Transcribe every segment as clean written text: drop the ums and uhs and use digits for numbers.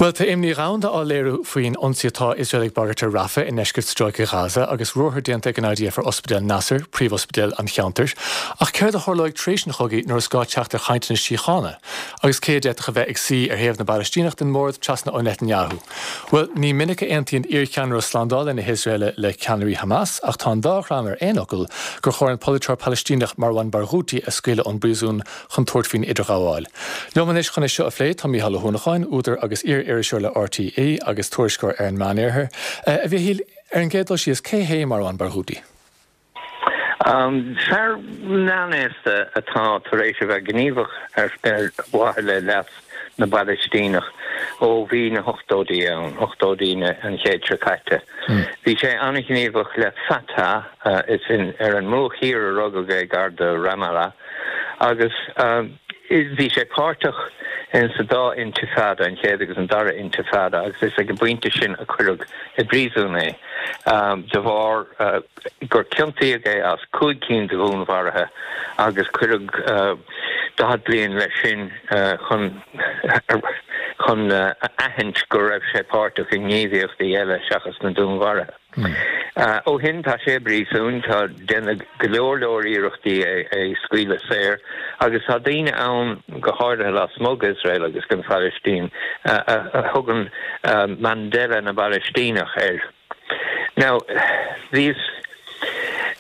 Bhuel, tá imní dhomhanda á léiriú faoin ionsaí atá Iosrael ag bagairt ar Rafah i ndeisceart Stráice Ghaza agus ruathar déanta ag an IDF ar Ospidéal Nasser, príomhospidéal an cheantair. Ach céard a tharlóidh tar éis an chogaidh nuair is gá teacht ar chainteanna síochána? Agus cé a d'fhéadfadh a bheith ag suí ar thaobh na bPalaistíneach den mbord trasna ó Netanyahu? Bhuel, ní minic a aontaíonn iarcheannaire slándála na hIosraeile le ceannairí Hamas ach tá an dá dhream ar aon fhocal gur chóir an polaiteoir Palaistíneach Marwan Barghouti a scaoileadh ón bpríosún chun tabhairt faoin idirghabháil. Liom anois chun é seo a phlé tá Mícheál Ó hUanacháin, údar agus iar-iriseoir le RTÉ agus tuairisceoir ar an Meánoirthear. A Mhichíl, ar an gcéad dul síos, cé hé Marwan Barghouti? Fear meánaosta atá tar éis a bheith gníomhach ar mhaithe le leas na bPalaistíneach ó bhí na hochtóidí ann, ochtóidí an chéid seo caite. Bhí sé an-ghníomhach le Fatah, is ar an mBruach Thiar a rugadh é, gar do Ramallah. Agus bhí sé páirteach in sa dá intifada, an chéad agus an dara intifada, agus is ag an bpointe sin a cuireadh i bpríosún é de bharr gur ciontaíodh é as 5 cinn de dhúnmharuithe agus cuireadh 40 bliain leis sin chun chun a aithint go raibh sé páirteach i ngníomhaíochtaí eile seachas na dúnmharuithe. Ó shin tá sé i bpríosún, tá déanadh go leor leor iarrachtaí é a scaoileadh saor agus tá daoine ann, go háirithe lasmuigh d'Iosrael agus den Phalaistín, a thugann Mandela na bPalaistíneach air. Now, bhíos.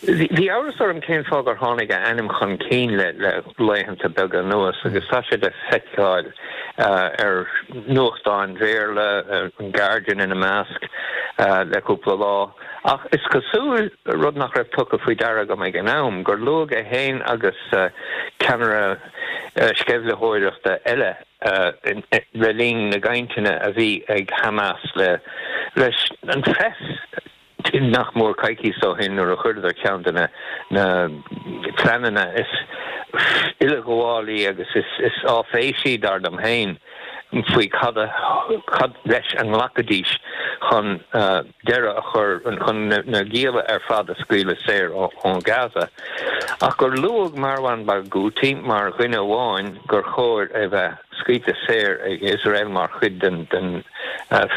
Bhí amhras orm cén fáth gur tháinig a ainm chun cinn le laethanta beaga anuas agus tá sé le feiceáil ar nuachtáin Bhéarla, an Guardian ina measc, le cúpla lá. Ach is cosúil, rud nach raibh tugtha faoi deara agam ag an am, gur luadh é féin agus ceannaire sceimhlitheoireachta eile le linn na gcainteanna a bhí ag Hamas leis an phreas. Nach mór coicís ó shin nuair a chuireadar ceann de na pleananna is uileghabhálaí agus is áiféisí, dar liom féin, faoi cad cad leis a nglacfaidís chun deireadh a chur, chun na gialla ar fad a scaoileadh saor ó Gaza. Ach gur luadh Marwan Barghouti mar dhuine amháin gur chóir a bheith scaoilte saor ag Iosrael mar chuid den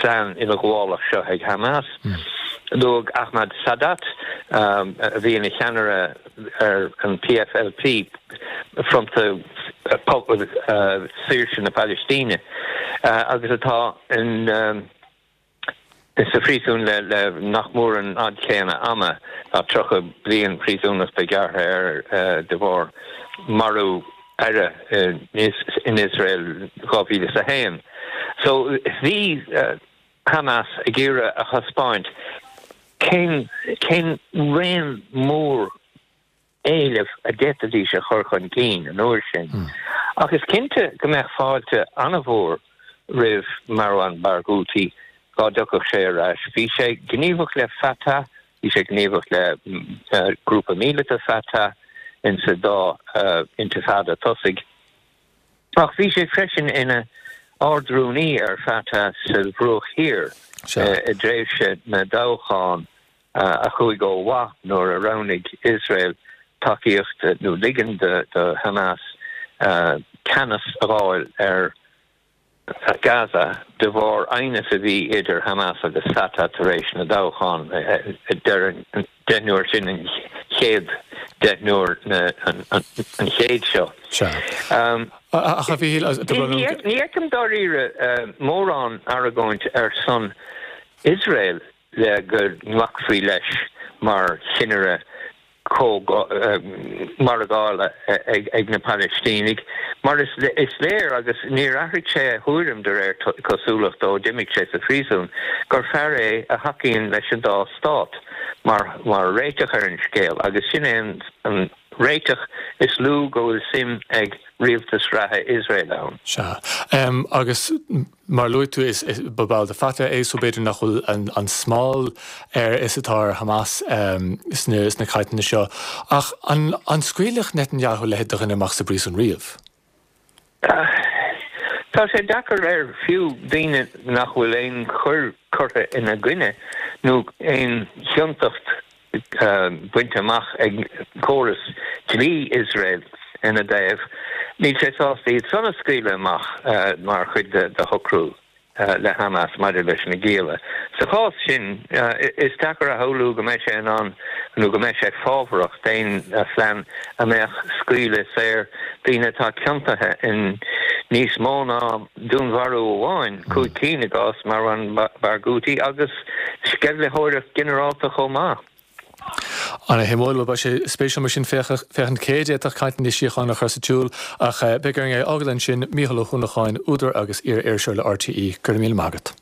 phlean uileghabhálach seo ag Hamas. Luadh Ahmad Sadat, a bhí ina cheannaire ar an PFLP, Fronta Saoirse na Palaistíne, agus atá in sa phríosún le nach mór an fhad céanna ama, tá 30 bliain príosúnachta gearrtha air de bharr marú aire in Iosrael 2001. So bhí Hamas ag iarraidh a thaispeáint cén cén raon mór éileamh a d'fhéadfaidís a chur chun cinn an uair sin. Ach is cinnte go mbeadh fáilte an-mhór roimh Marwan Barghouti dá dtiocfadh sé ar ais. Bhí sé gníomhach le Fatah, bhí sé gníomhach le grúpa míleata Fatah insa dá intifada tosaigh. Ach bhí sé freisin ina Ard-Rúnaí ar Fatah sa Bhruach Thiar i dtréimhse na dtoghchán a chuaigh ó mhaith nuair a roghnaigh Iosrael tacaíocht nó ligean do Hamas ceannas a fháil ar Gaza de bharr aighneas a bhí idir Hamas agus Fatah tar éis na dtoghchán i deireadh an deichniúir sin, an chéad deichniúr an chéid seo. Ach a Mhíchíl, Ní fheicim dáiríre mórán argóint ar son Iosrael le go nglacfaí leis mar chinnire margála ag na Palaistínigh, mar is léir, agus níor athraigh sé a thuairim de réir cosúlachta ó d'imigh sé sa phríosún, gur fear é a thacaíonn leis an dá stát mar réiteach ar an scéal, agus sin é an réiteach is lú go bhfuil suim ag rialtas reatha Iosrael ann. Sea. Agus. Mar a luaigh tú, is ba ball de Fatah é so b'fhéidir nach bhfuil an smál air is atá ar Hamas sna cainteanna seo. Ach an scaoilfeadh Netanyahu a leithéid de dhuine amach as an bpríosún riamh? Tá sé deacair air fiú daoine nach bhfuil aon choir curtha ina gcoinne nó aon chiontacht bainte amach ag córas dlí Iosrael ina dtaobh, níl sé sásta iad san a scaoileadh amach mar chuid de shocrú. le Hamas maidir leis na gialla. Sa chás sin, is deacair a shamhlú go mbeidh sé in ann nó go mbeidh sé fábharach d'aon phlean a mbeadh scaoileadh saor daoine atá ciontaithe in níos mó ná dúnmharú amháin, 5 cinn i gcás Marwan Barghouti, agus sceimhlitheoireacht ghinearálta chomh maith. Ana-shuimiúil. Bhuel, beidh sé spéisiúil mar sin féachaint cé a d'fhéadfadh cainteanna síochána a chur sa tsiúl. Ach beidh orainn é a fhágáil ansin. Mícheál Ó hUanacháin, údar agus iar-iriseoir le RTÉ, go raibh míle maith agat.